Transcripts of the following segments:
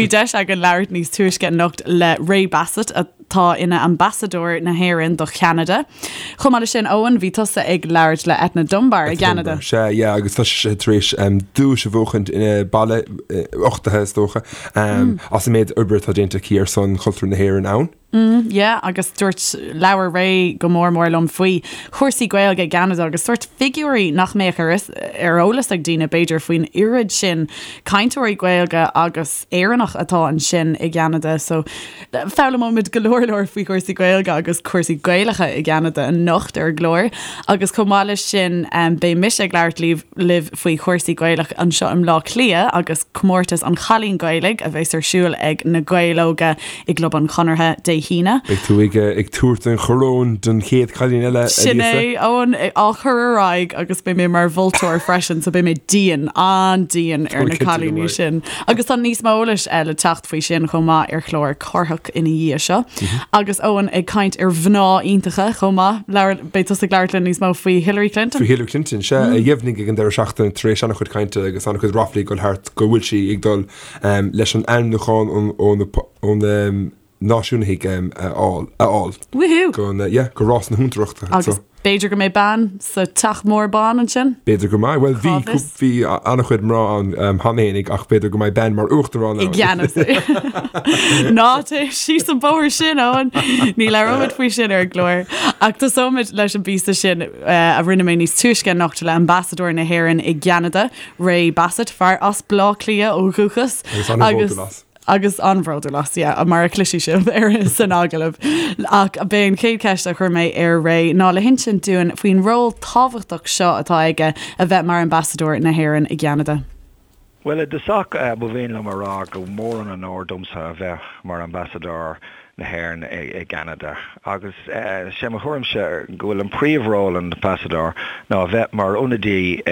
Bhí deis againn labhairt níos túisce anocht le Ray Bassett, atá ina Ambasadóir na hÉireann do Cheanada. Chomh maith leis sin, Eoin, bhí tusa ag labhairt le Eithne Dunbar i gCeanada. Sea, yeah, agus tá sise tar éis duais a bhuachaint ina baile, uchtaithe is dócha, as an méid oibre atá déanta aici ar son chultúr na hÉireann ann. Yeah, agus dúirt, labhair Ray go mór mór liom faoi chúrsaí Gaeilge i gCeanada agus sórt figiúirí nach mbeadh ar ar eolas ag daoine, b'fhéidir, faoin oiread sin cainteoirí Gaeilge agus Éireannach atá ansin i gCeanada. So foghlaimeoimid go leor leor faoi chúrsaí Gaeilge agus cúrsaí Gaelacha i gCeanada anocht ar an gclár. Agus chomh maith leis sin, beidh mise ag labhairt libh libh faoi chúrsaí Gaelach anseo i mBleá Cliath agus comórtas an Chailín Gaelaigh a bheas ar siúl ag na Gaeil Óga i gClub an Chonartha Dé hAoine. Beidh tú ag ag tabhairt an choróin don chéad chailín eile, a Sin Lisa. é, Eoin, á chur ar aghaidh agus beidh mé mar mholtóir freisin, so beidh mé dian, an-dian ar na cinnte go cailíní mbeidh. sin. Agus tá níos mó eolais le teacht faoi sin chomh maith ar chlár Cárthach ina dhiaidh seo. Agus Eoin ag caint ar mhná iontacha chomh maith, labhair, beidh tusa ag labhairt linn níos mó faoi Hillary Clinton. Faoi Hillary Clinton, sea, a dheimhnigh ag an deireadh seachtaine tar éis an-chuid cainte agus an-chuid ráflaí ag dul thart go bhfuil sí ag dul leis an ainmniúchán ó na náisiúnaithe a fháil. Woohoo! Go, yeah, go rás na huachtaránachta. Agus b'fhéidir go mbeidh bean sa teach mór bán ansin? B'fhéidir go mbeidh. Bhuel, bhí, bhí an-chuid mná ann cheana fhéinig ach b'fhéidir go mbeidh bean mar uachtarán ann. I gceannas. Ná téigh síos an bóthar sin, Eoin. Ní labhróimid faoi sin ar an gclár. Ach tosóimid leis an bpíosa sin a rinne mé níos túisce anocht le Ambasadóir na hÉireann i gCeanada, Ray Bassett, fear as Bleá Cliath ó dhúchas. Agus an-bhródúil as. Agus an-bhródúil as, yeah, mar a chloisfidh sibh ar san agallamh. Ach b'é an chéad cheist a chuir mé ar Ray ná le hinsint dúinn faoin ról tábhachtach seo atá aige a bheith mar Ambasadóir na hÉireann i gCeanada. Bhuel, i dtosach, ba mhian liom a rá go mór an onóir domsa a bheith mar Ambasadóir na hÉireann i gCeanada. Agus sé mo thuairimse go bhfuil an príomh-ról an Ambasadóir ná a bheith mar ionadaí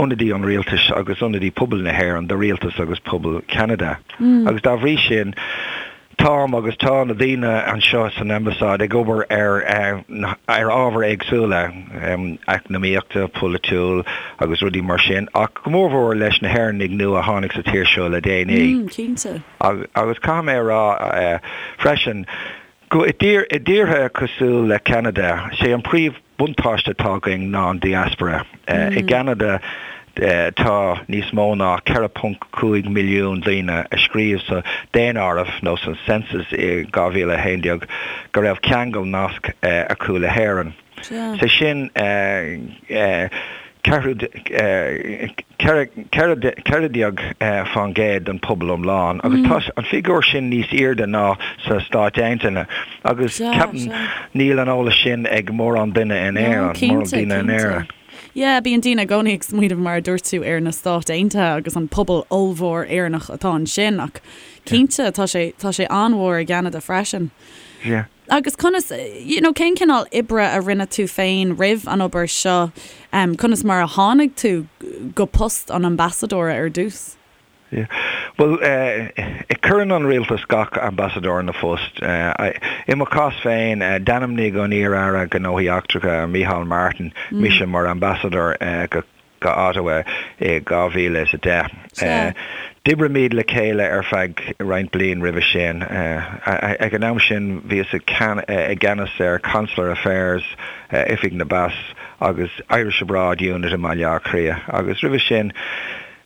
ionadaí an rialtais agus ionadaí pobal na hÉireann do rialtas agus pobal Cheanada. Agus dá bhrí sin, táim agus tá na daoine anseo san Ambasáid ag obair ar ar ábhair éagsúla, eacnamaíochta, polaitiúil agus rudaí mar sin, ach go mórmhór leis na hÉireannaigh nua a tháinig sa tír seo le déanaí. Cinnte. Agus caithfidh mé a rá freisin, go i dtíortha cosúil le Ceanada, sé an príomh buntáiste atá againn ná an diaspora. I gCeanada tá níos mó ná 4.5 milliún daoine a scríobh sa daonáireamh nó san census i 2011 go raibh ceangal, nasc acu le hÉirinn. Sé sin 14% den pobal iomlán agus tá an figiúr sin níos airde ná sna Stáit Aontaithe agus ceapaim níl an eolas sin ag mórán duine in Éirinn, mórán daoine in Éirinn. Yeah, bíonn daoine i gcónaí ag smaoineamh mar a dúirt tú ar na Stáit Aontaithe agus an pobal ollmhór Éireannach atá ansin ach cinnte tá sé tá sé an-mhór i gCeanada freisin. Yeah. Agus conas, you know, cén cineál oibre a rinne tú féin roimh an obair seo? Conas mar a tháinig tú go post an ambasadóra ar dtús? Yeah. Bhuel, cuireann an rialtas gach ambasadóir ina phost. I mo chás féin, d'ainmnigh an iar-aire Gnóthaí Eachtracha, Micheál Martin, mise mar ambasadóir go go Ottawa i 2010. D'oibrigh le chéile ar feadh roinnt bliain roimhe sin. Ag an am sin bhíos i gceannas ar Consular Affairs, Oifig na bPas agus Irish Abroad Unit i mBaile Átha Cliath agus roimhe sin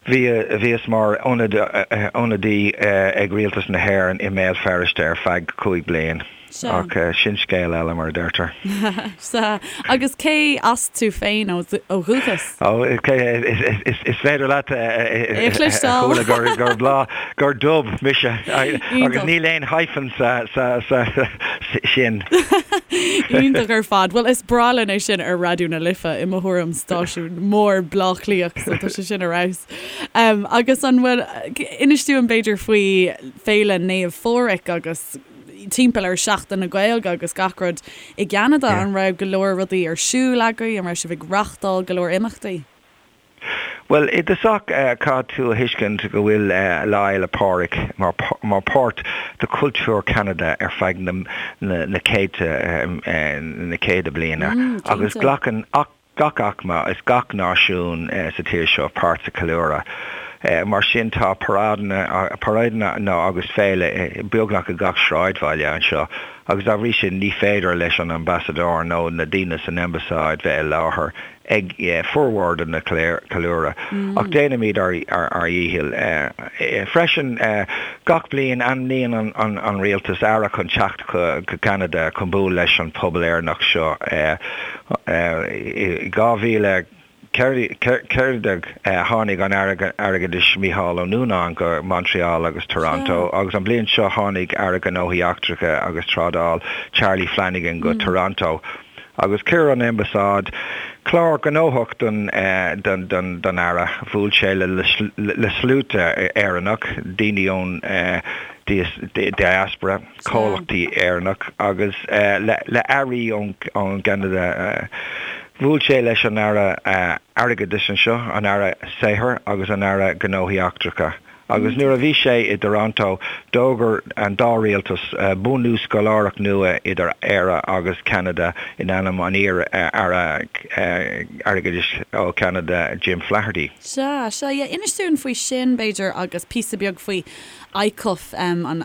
bhíos mar ionadaí ag Rialtas na hÉireann i mBéal Feirste ar feadh 5 bliain. Sea. Ach sin scéal eile, mar a deirtear. Sea. Agus cé as tú féin ó dhúchas? Ó, is féidir leat É a chloisteáil. a chuala gur Bleá, gur Dub mise. Agus níl aon hyphen sa sin. Iontach ar fad. Bhuel, is breá linn é sin ar Raidió na Life, i mo thuairim, stáisiún mór Bleá Cliathach, so tá sé sin ar fheabhas. Agus an bhfuil, inis dúinn b'fhéidir faoi Féile Naomh Phádraig agus timpeall ar Seachtain na Gaeilge agus gach rud i gCeanada, an raibh go leor rudaí ar siúl agaibh, an raibh sibh ag reachtáil go leor imeachtaí? Bhuel, i dtosach caithfidh tú a thuiscint go bhfuil Lá Fhéile Pádraig mar mar páirt de chultúr Cheanada ar feadh na na céadta na céadta bliana agus glacann gach aicme is gach náisiún sa tír seo páirt sa cheiliúradh. Mar sin tá paráideanna, paráideanna agus féile beagnach i gach sráidbhaile anseo agus dá bhrí sin ní féidir leis an ambasadóir nó na daoine san ambasáid bheith i láthair ag formhór de na ceiliúradh. Ach déanaimid ár dhícheall. Freisin, gach bliain ainmníonn an rialtas aire chun teacht go Ceanada chun bualadh leis an pobal Éireannach seo. I 2000. 14 tháinig an Aire Airgeadais Mícheál Ó Nuanáin go Montreal agus Toronto agus an bhliain seo tháinig Aire Gnóthaí Eachtracha agus Trádáil Charlie Flanagan go Toronto agus chuir an Ambasáid clár gnóthach don don Aire. Bhuail sé le sluaite Éireannach, daoine ón diaspora. comhlachtaí Éireannach agus le airí ón gCeanada. Bhuail sé leis an Aire Airgeadais anseo, an Aire Saothair agus an Aire Gnóthaí Eachtracha. Agus nuair a bhí sé i dToronto, d'fhógair an dá rialtas bunú scoláireacht nua idir Éire agus Ceanada in ainm an iar-Aire Airgeadais ó Cheanada, Jim Flaherty. Sea, sea, yeah. Inis dúinn faoi sin, b'fhéidir, agus píosa beag faoi ICUF, an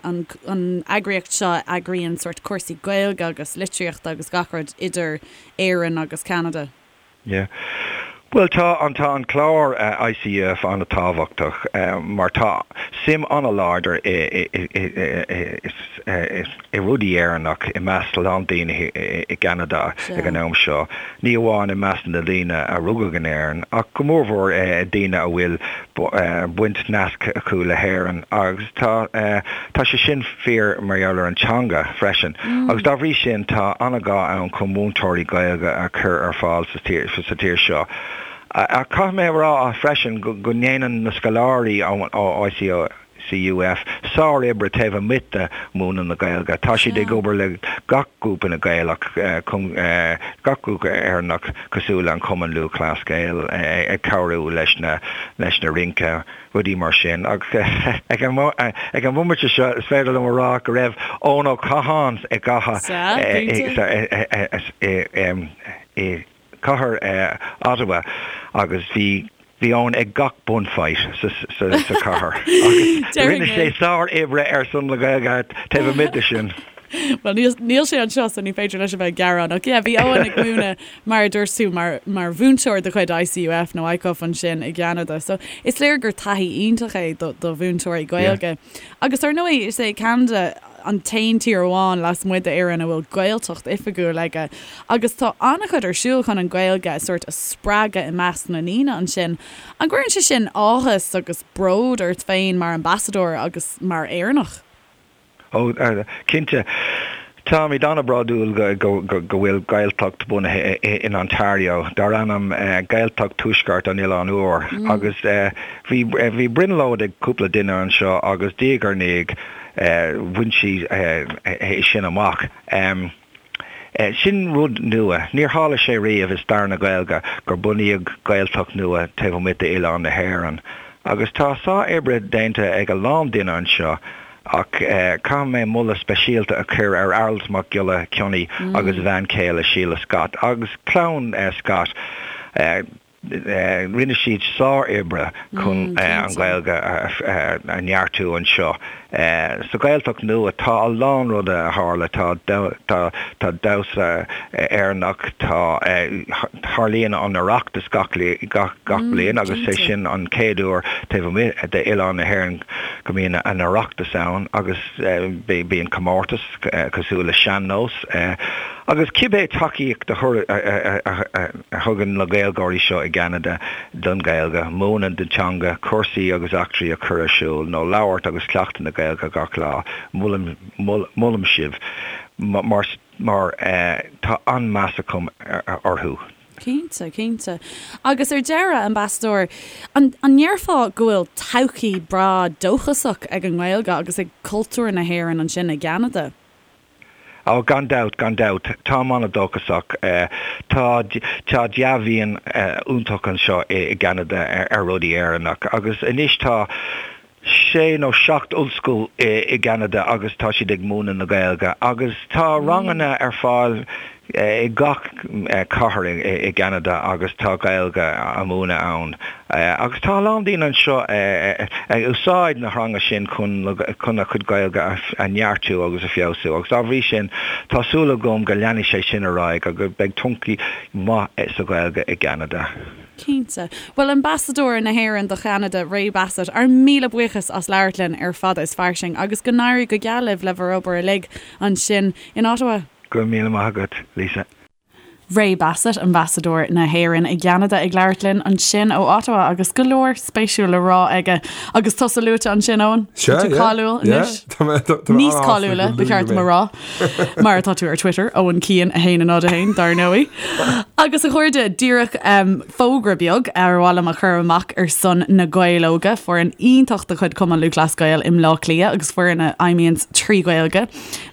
eagraíocht seo a eagraíonn sórt cúrsaí Gaeilge agus litríochta agus gach rud idir Éirinn agus Ceanada. Yeah. Bhuel tá an tá an clár ICUF an-tábhachtach mar tá suim an-láidir i i i rudaí Éireannach i measc a lán daoine i gCeanada ag an am seo, ní amháin i measc na daoine a rugadh in Éirinn ach go mórmhór daoine a bhfuil baint nasc acu le hÉirinn agus tá tá sé sin fíor mar gheall ar an teanga freisin agus dá bhrí sin tá an-ghá ann chun múinteoirí Gaeilge a chur ar fáil sa tír sa tír seo. Ach caithfidh mé a rá freisin go ndéanann na scoláirí ó ICO CUF, sár-oibre taobh amuigh de mhúineadh na Gaeilge. Tá siad ag obair le gach grúpa na Gaelach, gach grúpa Éireannach cosúil le an Cumann Lúthchleas Gael, ag cabhrú leis na leis na rince, rudaí mar sin. Agus ag an ag an bhomaite seo is féidir liom a rá go raibh Eoin Ó Catháin i gcathair i cathair Ottawa agus bhí bhí Eoin ag gach bunfight sa sa chathair agus rinne sé sár-oibre ar son na Gaeilge taobh amuigh de sin. Bhuel níl níl sé anseo so ní féidir leis a bheith ag gearán ach yeah bhí Eoin ag múineadh mar a dúirt tú mar mar mhúinteoir de chuid ICUF nó ICUF ansin i gCeanada so is léir gur taithí iontach é do do mhúinteoirí Gaeilge. Agus ar ndóigh is é Ceanada an t-aon tír amháin lasmuigh d'Éirinn a bhfuil Gaeltacht oifigiúil aige agus tá an-chuid ar siúl chun an Ghaeilge a sórt a spreagadh i measc na ndaoine ansin. An gcuireann sé sin áthas agus bród ort féin mar ambasadóir agus mar Éireannach? Ó, cinnte. Táimid an-bhródúil go bhfuil Gaeltacht bunaithe in Ontario dar ainm Gaeltacht Tuaisceart an Oileáin Úir agus bhí bhí brionglóid ag cúpla duine anseo agus diaidh ar ndiaidh bhain siad é sin amach. Sin rud nua. Níor tharla sé riamh i stair na Gaeilge gur bunaíodh Gaeltacht nua taobh amuigh d'oileán na hÉireann. Agus tá sár-oibre déanta ag a lán duine anseo ach caithfidh mé moladh speisialta a chur ar Aralt Mac Giolla Chionnaith agus a bhean chéile Síle Scott agus clann Scott. Rinne siad sár-oibre chun an Ghaeilge a neartú anseo. Sa Ghaeltacht nua tá a lán ruda a tharla, tá tá damhsa Éireannach, tá tarlaíonn an Oireachtas gach gach bliain agus é sin an chéad uair taobh amuigh d'oileán na hÉireann go mbíonn an Oireachtas ann agus bíonn comórtas cosúil le sean-nós agus cibé tacaíocht a a thugann na Gaeilgeoirí seo i gCeanada don Ghaeilge, múineadh na teanga, cúrsaí agus eachtraí a chur ar siúl, nó labhairt agus cleachtadh na Gaeilge gach lá, molaim, molaim sibh mar, mar tá an-meas agam orthu. Cinnte, cinnte. Agus ar deireadh, Ambasadóir, an, an ndéarfá go bhfuil todhchaí breá dóchasach ag an nGaeilge agus ag cultúr na hÉireann ansin i gCeanada? Ó, gan dabht, gan dabht. Táim an-dóchasach. Tá, tá dea-mhian iontach anseo i gCeanada ar rudaí Éireannach agus anois tá sé nó seacht ollscoil i gCeanada agus tá siad ag múineadh na Gaeilge agus tá ranganna ar fáil. i gach cathair i gCeanada agus tá Gaeilge á múineadh ann. Agus tá a lán daoine anseo ag úsáid na theanga sin chun chun a chuid Gaeilge a neartú agus a feabhsú agus dá bhrí sin tá súil agam go leanfaidh sé sin ar aghaidh agus beidh todhchaí maith sa Ghaeilge i gCeanada. Cinnte. Bhuel, Ambasadóir na hÉireann do Cheanada, Ray Bassett, ár míle buíochas as labhairt linn ar Fada is Fairsing agus go n-éirí go geal libh le bhur obair uilig ansin in Ottawa. Go raibh míle maith agat, Lisa. Ray Bassett, Ambasadóir na hÉireann i gCeanada ag labhairt linn ansin ó Ottawa agus go leor spéisiúil le rá aige. Agus tusa luaite ansin, Eoin. Sea, Tá tú yeah, cáiliúil yeah. anois. Tá mé- tá- tá mé Níos an-sásta cáiliúla, go ba cheart dom a luaigh mé. rá, mar atá tú ar Twitter, Eoin Keane 1 0 1, dar ndóigh. Agus a chairde, díreach um, fógra beag ar mhaith liom a chur amach ar son na Gaeil Óga, foireann iontach de chuid Cumann Lúthchleas Gael i mBleá Cliath agus foireann a fheidhmíonns trí Ghaeilge.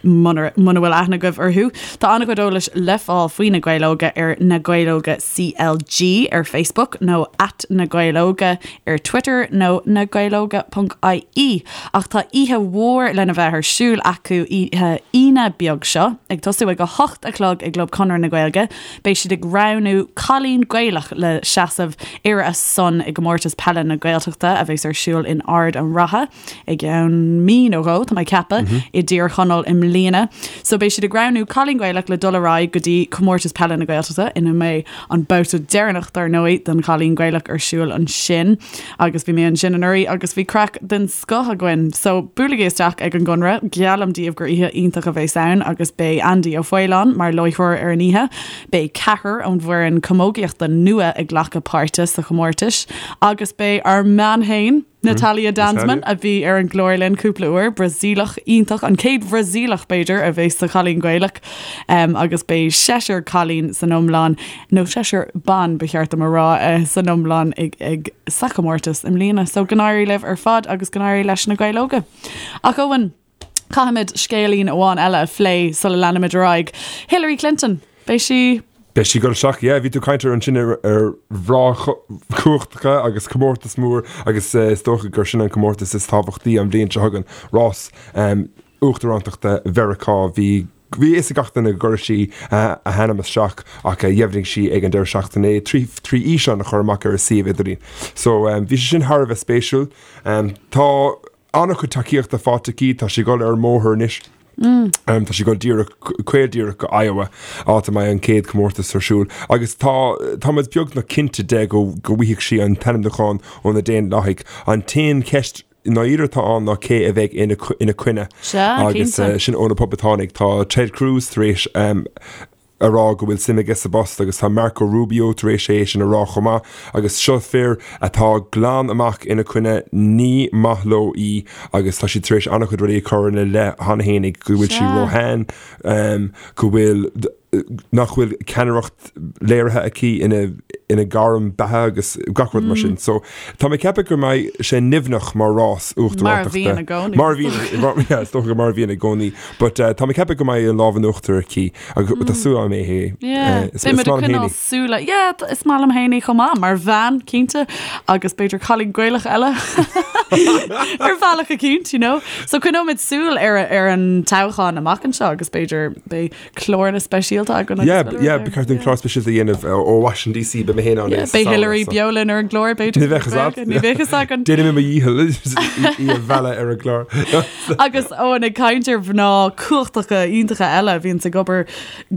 Muna bhfuil aithne agaibh orthu, tá an-chuid eolais le fáil faoi Na Gaeil Óga ar Na Gaeil Óga CLG ar Facebook nó at Na Gaeil Óga ar Twitter nó nagaelóga.ie. Ach tá oíche mhór lena bheith ar siúl acu oíche Aoine beag seo, ag tosú ag 8 a chlog i gClub Chonradh na Gaeilge. Beidh siad ag roghnú cailín Gaelach le seasamh ar a son i gComórtas Peile na Gaeltachta a bheas ar siúl in Ard an Rátha. i gceann mí nó dhó, tá mé ag ceapadh, i dTír Chonaill i mbliana. So beidh siad ag roghnú cailín Gaelach le dul ar aghaidh go dtí Comórtas Peile na Gaeltachta ina mbeidh an babhta deireanach dar ndóigh don chailín Gaelach ar siúl ansin. Agus bhí mé ansin anuraidh agus bhí craic den scoth againn. So buailigí isteach ag an gConradh, geallaim daoibh gur oíche iontach a bheas ann agus beidh Andy Ó Faoláin mar láithreoir ar an oíche. Beidh ceathrar ón bhfoireann camógaíochta nua ag glacadh páirte sa chomórtas agus beidh ár mbean fhéin, Natalia Danzmann, a bhí ar an gclár linn cúpla uair, Brasaíleach iontach, an chéad Bhrasaíleach, b'fhéidir, a bheas sa Chailín Gaelach, agus beidh seisear cailín san iomlán, nó seisear ban, ba cheart dom a rá, san iomlán ag, ag, sa chomórtas i mbliana. So go n-éirí libh ar fad agus go n-éirí leis na Gaeil Óga. Ach Eoin, caithfimid scéilín amháin eile a phlé sula leanaimid ar aghaidh. Hillary Clinton, beidh sí. Beidh sí ag dul isteach, yeah, bhí tú ag caint ar ansin ar ar mhná cumhachtacha agus comórtas mór agus is dócha gur sin an comórtas is tábhachtaí an bhliain seo chugainn, rás uachtarántachta Mheiriceá. Bhí bhí a fhios ag gach duine go gcuirfeadh sí a hainm isteach ach dheimhnigh sí ag an deireadh seachtaine é trí trí fhíseán a chur amach ar a suíomh idirlín. So bhí sé sin thar a bheith spéisiúil. Tá an-chuid tacaíochta faighte aici, tá sí ag dul ar an mbóthar anois. Tá sí ag dul díreach, caol díreach go Iowa, áit a mbeidh an chéad chomórtas ar siúl. Agus tá, tá muid beagnach cinnte de go, go bhfaighidh sí an t-ainmniúchán ó na Daonlathaigh. An t-aon cheist i ndáiríre atá ann ná cé a bheidh ina, ina coinne. Sea, Agus cinnte. sin ó na Poblachtánaigh. Tá Ted Cruz tar éis a rá go bhfuil suim aige sa bpost agus tá Marco Rubio tar éis é sin a rá chomh maith agus seo fir atá glan amach ina coinne, ní maith leo í agus tá siad tar éis an-chuid rudaí a chur ina leith cheana fhéinig, go bhfuil sí róshean, go bhfuil, nach bhfuil ceannaireacht léirithe aici ina ina gairm beatha agus gach rud mar sin. So tá mé ag ceapadh go mbeidh sé nimhneach mar rás uachtarántachta. Mar a bhíonn i gcónaí. Mar a bhíonn, yeah, is dócha mar a bhíonn i gcónaí. But tá mé ag ceapadh go mbeidh an lámh in uachtar aici agus tá súil agam é. Yeah, Is beidh muid maith ag liom coinneáil fhéin í. súile. Yeah, is maith liom fhéin í chomh maith, mar bhean, cinnte, agus b'fhéidir cailín Gaelach eile ar bhealach eicínt, you know. So coinneoimid súil ar ar an toghchán amach anseo agus b'fhéidir beidh cláranna speisialta againn agus Yeah, go leor yeah, there. ba cheart dúinn clár speisialta a dhéanamh ó Washington DC, beidh mé féin ann Yeah, sa beidh samhradh, Hillary so. beo linn ar an gclár, b'fhéidir. Ní bheadh fhios agat. Ní bheadh fhios againn. Déanfaidh mé mo dhícheall í a mhealladh ar an gclár. Agus Eoin ag caint ar mhná cumhachtacha iontacha eile a bhíonns ag obair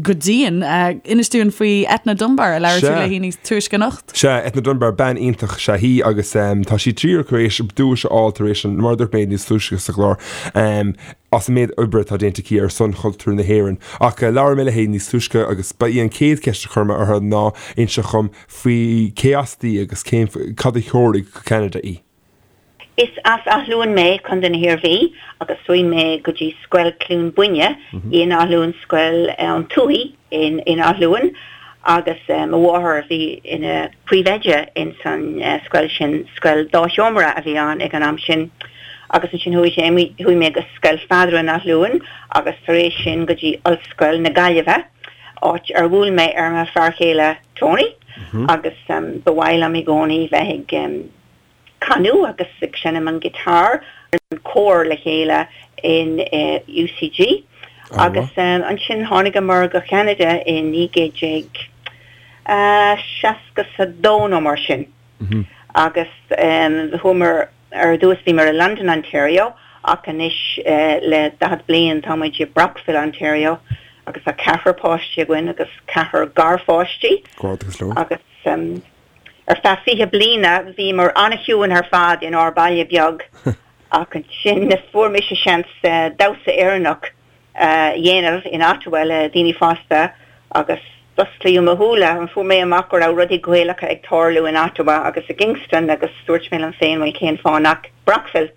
go dian, inis dúinn faoi Etna Dunbar a labhair tú Sea. léi níos túisce anocht. Sea, Etna Dunbar, bean iontach is ea í agus tá sí díreach tar éis duais a fháil tar éis an, mar a dúirt mé níos túisce sa chlár, as an méid oibre atá déanta aici ar son chultúr na hÉireann. Ach labhair mé léi níos túisce agus ba í an chéad cheist a chuir mé uirthi ná inse dhom faoi cé as di agus cén, cad a threoraigh go Ceanada í. Is as Áth Luain mé, Contae na hIarmhí, agus chuaigh mé go dtí Scoil Cluain Búinne in Áth Luain, Scoil an Tuathaigh in Áth Luain, agus mo mháthair a bhí ina príomhoide ins an scoil sin, scoil dá sheomra a bhí ann ag an am sin. Agus ansin chuaigh sé, chuaigh mé go Scoil Pheadair in Áth Luain agus tar éis sin go dtí Ollscoil na Gaillimhe, áit ar bhuail mé ar mo fear chéile Tony agus ba mhaith liom i gcónaí bheith ag canadh agus ag seinm an guitar, an cór le chéile in UCG. Agus ansin tháinigeamar go Ceanada i 1962 nó mar sin. Agus chuamar, ar dtús bhíomar i London, Ontario ach anois le 40 bliain tá muid i Brockville, Ontario agus tá ceathrar páistí againn agus ceathrar garpháistí. Agus ar feadh 20 bliana bhíomar an-chiúin ar fad inár baile beag ach ansin fuair mise seans damhsa Éireannach a dhéanamh in Ottawa le daoine fásta agus d'osclaíodh mo shúile. Fuair mé amach go raibh rudaí Gaelacha ag tarlú in Ottawa agus i gKingston agus dúirt mé liom féin bhuel cén fáth nach Brockville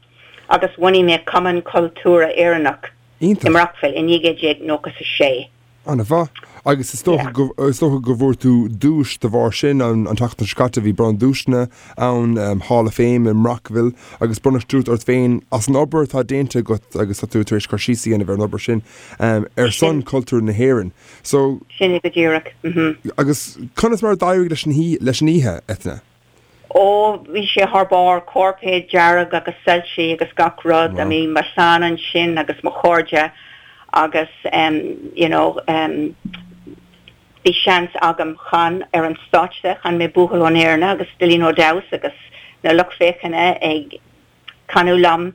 agus bhunaigh mé Cumann Cultúrtha Éireannach i mBrockville i 1996. An-mhaith. Agus is dócha go, is dócha go bhfuair tú duais de bharr sin an tseachtain seo caite, bhí bronnadh duaiseanna ann, Hall of Fame i mBrockville agus bronnadh duais ort féin as an obair atá déanta agat agus tá tú tar éis cur síos a dhéanamh ar an obair sin ar son cultúr na hÉireann. So. Sin é go díreach. Agus conas mar a d'éirigh leis an leis an oíche, Eithne? Ó, bhí sé thar barr, cairpéad dearg agus soilsí agus gach rud. I mean, mo chlann ansin agus mo chairde agus em, you know, em, bhí seans agam chan ar an stáitse, chan mé Buachaill ón Éirne agus Dillín Ó Deamhas agus na lucht féachana ag canadh liom.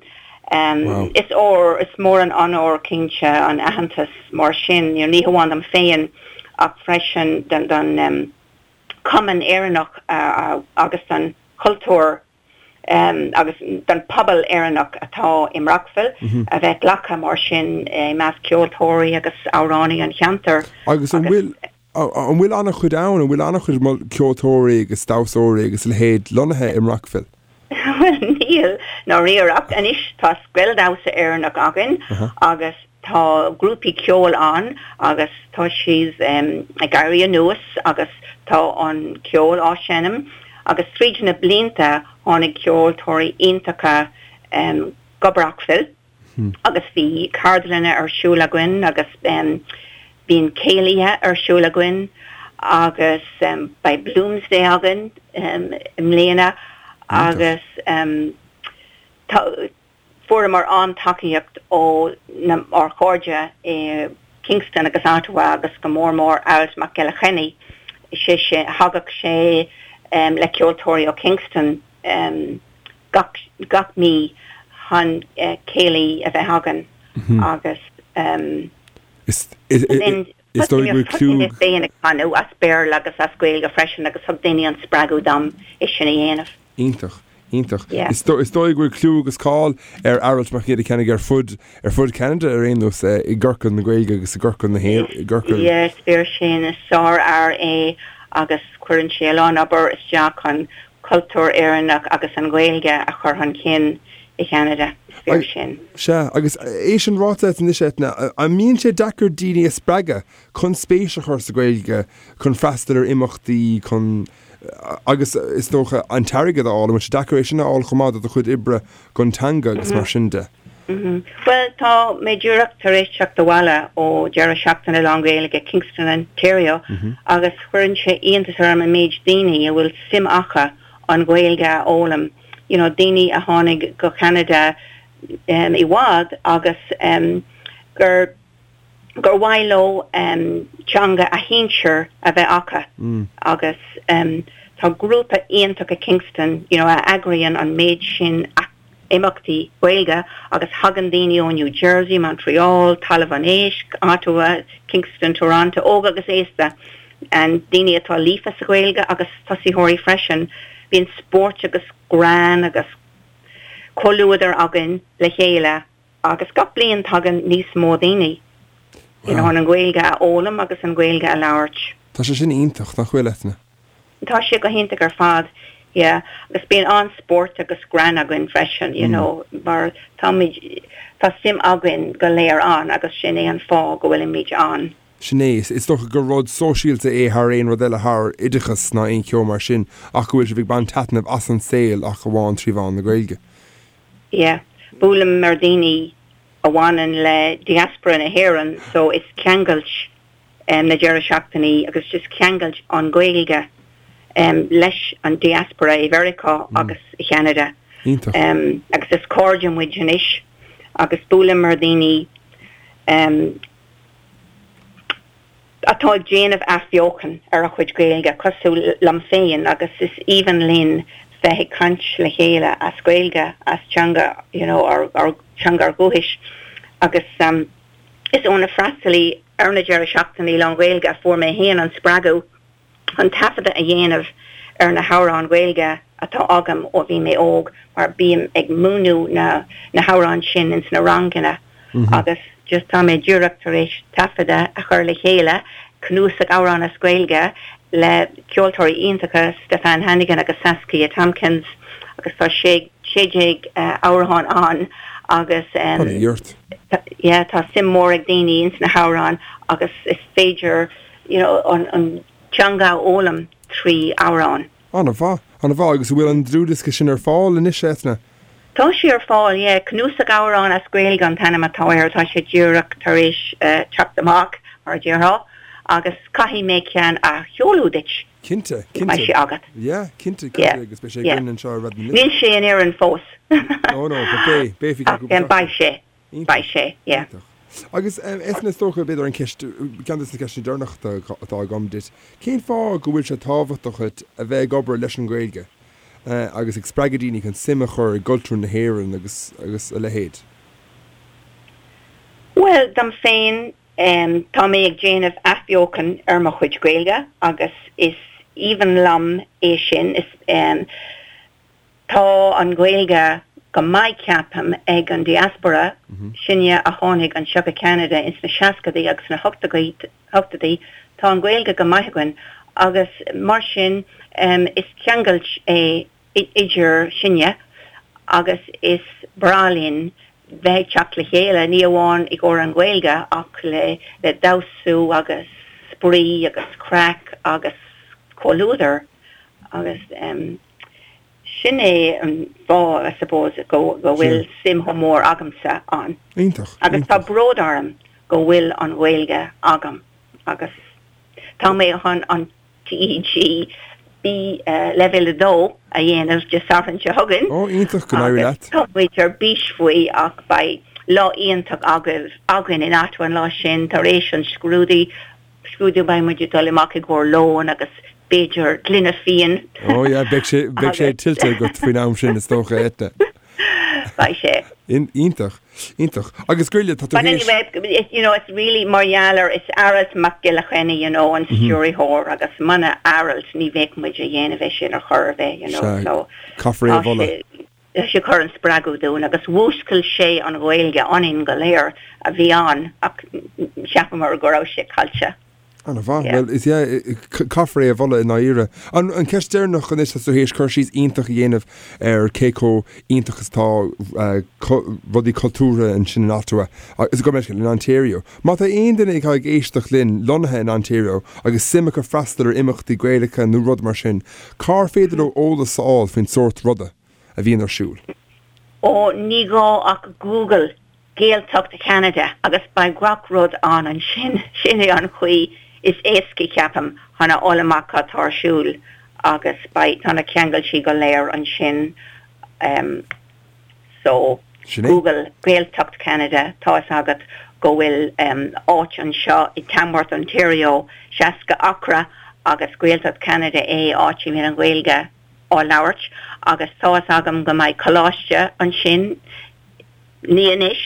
Em, is ór, is mór an onóir cinnte an aitheantas mar sin, you know, ní hamháin dom féin ach freisin don, don, em, Cumann Éireannach agus don chultúr agus don phobal Éireannach atá i mBrockville a bheith glactha mar sin i measc ceoltóirí agus amhránaí an cheantair. Agus an bhfuil an bhfuil an-chuid ann, an bhfuil an-chuid ceoltóirí agus damhsóirí agus a leithéid lonnaithe i mBrockville? Bhuel níl, ndáiríre, ach anois tá scoil damhsa Éireannach againn agus tá grúpaí ceoil ann agus tá siad ag éirí anuas agus tá an ceol á seinm agus tríd na blianta tháinig ceoltóirí iontacha go Brockville. agus bhí ceardlanna ar siúl againn agus bíonn céilithe ar siúl againn agus beidh Bloomsday againn i mbliana agus tá fuaireamar an-tacaíocht ó na ár chairde i Kingston agus Ottawa agus go mór mór Aralt Mac Giolla Chainnigh, sé sin thagadh sé le ceoltóirí ó Kingston. gach gach mí chun céilí a bheith againn agus Is is dóigh go bhfuil clú. Thosaigh mé féin ag canadh as Béarla agus as Gaeilge freisin agus thug daoine an spreagadh dom é sin a dhéanamh. Iontach, iontach. Is is dóigh go bhfuil clú agus cáil ar Aralt Mac Giolla Chainnigh ar fud ar fud Cheanada ar aon nós i gciorcal na Gaeilge agus i gciorcal na hÉireann, i gciorcal. Yes, fíor sin, is sárfhear é agus cuireann sé a lán obair isteach chun cultúr Éireannach agus an Ghaeilge a chur chun cinn i Cheanada. Is fíor sin. Sea, agus é sin ráite anois, Eithne, an mbíonn sé deacair daoine a spreagadh chun spéis a chur sa Ghaeilge, chun freastal ar imeachtaí, chun, agus is dócha, an t-airgead a fháil, an bhfuil sé deacair é sin a fháil chomh maith do do chuid oibre don teanga agus mar sin de? Bhuel, tá mé díreach tar éis teacht abhaile ó deireadh seachtaine lán-Ghaeilge Kingston, Ontario agus chuireann sé iontas orm an méid daoine a bhfuil suim acu an Ghaeilge a fhoghlaim, you know daoine a tháinig go Ceanada i bhfad agus gur gur mhaith leo teanga a shinsir a bheith acu agus tá grúpa iontach i Kingston you know a eagraíonn an méid sin imeachtaí Gaeilge agus thagann daoine ó New Jersey, Montreal, Talamh an Éisc, Ottawa, Kingston, Toronto, óg agus aosta, and daoine atá líofa sa Ghaeilge agus tosaitheoirí freisin. Bíonn spóirt agus greann agus comhluadar againn le chéile agus gach bliain tagann níos mó daoine you know, chun an Ghaeilge a fhoghlaim agus an Ghaeilge a labhairt. Tá sé sin iontach, nach bhfuil, Eithne? Tá sé go hiontach ar fad, yeah. Agus bíonn an-spórt agus greann againn freisin, you know, mar táimid, tá suim againn go léir ann agus sin é an fáth go bhfuilimid ann. Sin é. Is dócha gur rud sóisialta é thar aon rud eile, thar oideachas ná aon cheo mar sin, ach go bhfuil sibh ag baint taitneamh as an saol ach amháin trí mheán na Gaeilge. Yeah. Buailim ar daoine a bhaineann le diaspora na hÉireann so is ceangailt na deireadh seachtainí agus just ceangailt an Ghaeilge leis an diaspora i Mheiriceá agus i Cheanada. Iontach. Agus is cairde muid anois agus buailim ar daoine. Atá ag déanamh athbheochan ar a chuid Gaeilge, cosúil liom féin, agus is aoibhinn linn bheith ag caint le chéile as Gaeilge, as teanga, you know, ár, ár, teanga ár dhúchais. Agus is ó na freastalaí ar na deireadh seachtainí lán-Ghaeilge a fuair mé féin an spreagadh chun taifeadadh a dhéanamh ar na hamhráin Ghaeilge atá agam ó bhí mé óg mar bím ag múineadh na na hamhráin sin ins na ranganna agus just tá mé díreach tar éis taifeadadh a chur le chéile, cnuasach amhrán as Gaeilge le ceoltóirí iontacha Stephane Hannigan agus Saskia Tomkins agus tá sé 16 amhrán ann agus yeah tá suim mór ag daoine ins na hamhráin agus is féidir you know, an, an teanga a fhoghlaim trí amhráin. An-mhaith, an-mhaith. Agus an bhfuil an dlúthdhiosca sin ar fáil anois, Eithne? Tá sé ar fáil, yeah. Cnuasach Amhrán as Gaeilge an t-ainm atá air. Tá sé díreach tar éis teacht amach, mar a déarfá, agus caithfidh mé ceann a sheoladh duit. Cinnte, cinnte. Beidh sé agat. Yeah, cinnte, cinnte, agus beidh sé againn anseo ar Raidió na Life. Níl sé in Éirinn fós. No, no, but beidh, beidh faoi cheann cúpla seachtain. Beidh sé. Beidh sé, yeah. Iontach. Agus Eithne, is dócha, b'fhéidir an ceist, ceann de na ceisteanna deireanacha atá agam duit, cén fáth go bhfuil sé tábhachtach duit a bheith ag obair leis an Ghaeilge agus ag spreagadh daoine chun suim a chur i gcultúr na hÉireann agus agus a leithéid? Bhuel, dom féin, tá mé ag déanamh athbheochan ar mo chuid Gaeilge agus is aoibhinn liom é sin. Is. Tá an Ghaeilge go maith ceapaim ag an diaspora, sinne a tháinig anseo go Ceanada ins na seascadaí agus na hochtóidí, tá an Ghaeilge go maith againn agus mar sin is ceangailt é idir sinne agus is breá linn bheith ag teacht le chéile, ní amháin i gcomhair an Ghaeilge ach le le damhsú agus spraoi agus craic agus comhluadar agus. Sin é an fáth, I suppose, go bhfuil suim chomh mór agamsa ann. Iontach. Agus tá bród orm go bhfuil an Ghaeilge agam agus tá mé chun an TEG B leibhéal 2 a dhéanamh Dé Sathairn seo chugainn. Ó, iontach, go n-éirí leat. Tá muid ar bís faoi ach beidh lá iontach againn in Ottawa an lá sin tar éis an scrúdú. scrúdú beidh muid ag dul amach i gcomhair lóin agus b'fhéidir gloine fíon. Ó yeah, beidh sé, beidh sé tuillte agat faoin am sin is dócha, Eithne. Beidh sé. Iontach, iontach. Agus Goile, tá tú But anyway, you know, it's really mar gheall ar, it's Aralt Mac Giolla Chainnigh, you know, an stiúrthóir agus muna Aralt ní bheadh muid a dhéanamh é sin ar chor ar bith, you know, so. Caithfear é a mholadh. Tá sé ag cur an spreagadh dúinn agus mhúscail sé an Ghaeilge ionainn go léir a bhí ann ach cheapamar go raibh sé caillte. An-mhaith. Bhuel, is ea, caithfear é a mholadh i ndáiríre. An cheist deireanach anois, tá tú théis cur síos iontach a dhéanamh ar cé chomh iontach is atá rudaí cultúrtha ansin in Ottawa, agus gabh mo leithscéal, in Ontario. Má tá aon duine atá ag éisteacht linn lonnaithe in Ontario agus suim acu freastal ar imeachtaí Gaelacha nó rud mar sin, cár féidir leo eolas a fháil faoin sórt ruda? a bhíonn ar siúl. Ó, ní gá ach Google Gaeltacht Cheanada agus beidh gach rud ann ansin. Sin é an chaoi is éasca, ceapaim, chun a fháil amach cad tá ar siúl agus beidh, tá na ceangailtí go léir ansin. So, Sin é. Google Gaeltacht Cheanada, tá fhios agat go bhfuil áit anseo i Tamworth, Ontario, 60 acra agus Gaeltacht Cheanada é, áit a mbíonn an Ghaeilge. á labhairt agus tá fhios agam go mbeidh coláiste ansin, ní anois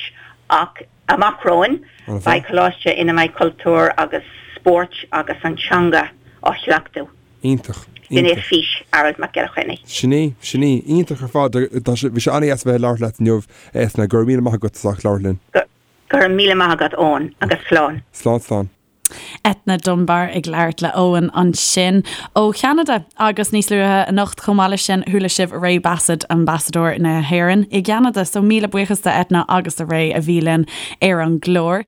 ach amach romhainn, beidh coláiste ina mbeidh cultúr agus spóirt agus an teanga á chleachtadh. Iontach. Sin é fís Aralt Mac Giolla Chainnigh. Sin í, sin í. Iontach ar fad. Tá sé, bhí sé an-dheas a bheith ag labhairt leat inniu, Eithne. Go raibh míle maith agat as ucht labhairt linn. Go raibh míle maith agat, Eoin, agus slán. Slán, slán. Eithne Dunbar ag labhairt le Eoin ansin ó Cheanada agus níos luaithe anocht chomh maith leis sin chuala sibh Ray Bassett, Ambasadóir na hÉireann i gCeanada. So míle buíochas do Eithne agus do Ray a bhí linn ar an gclár.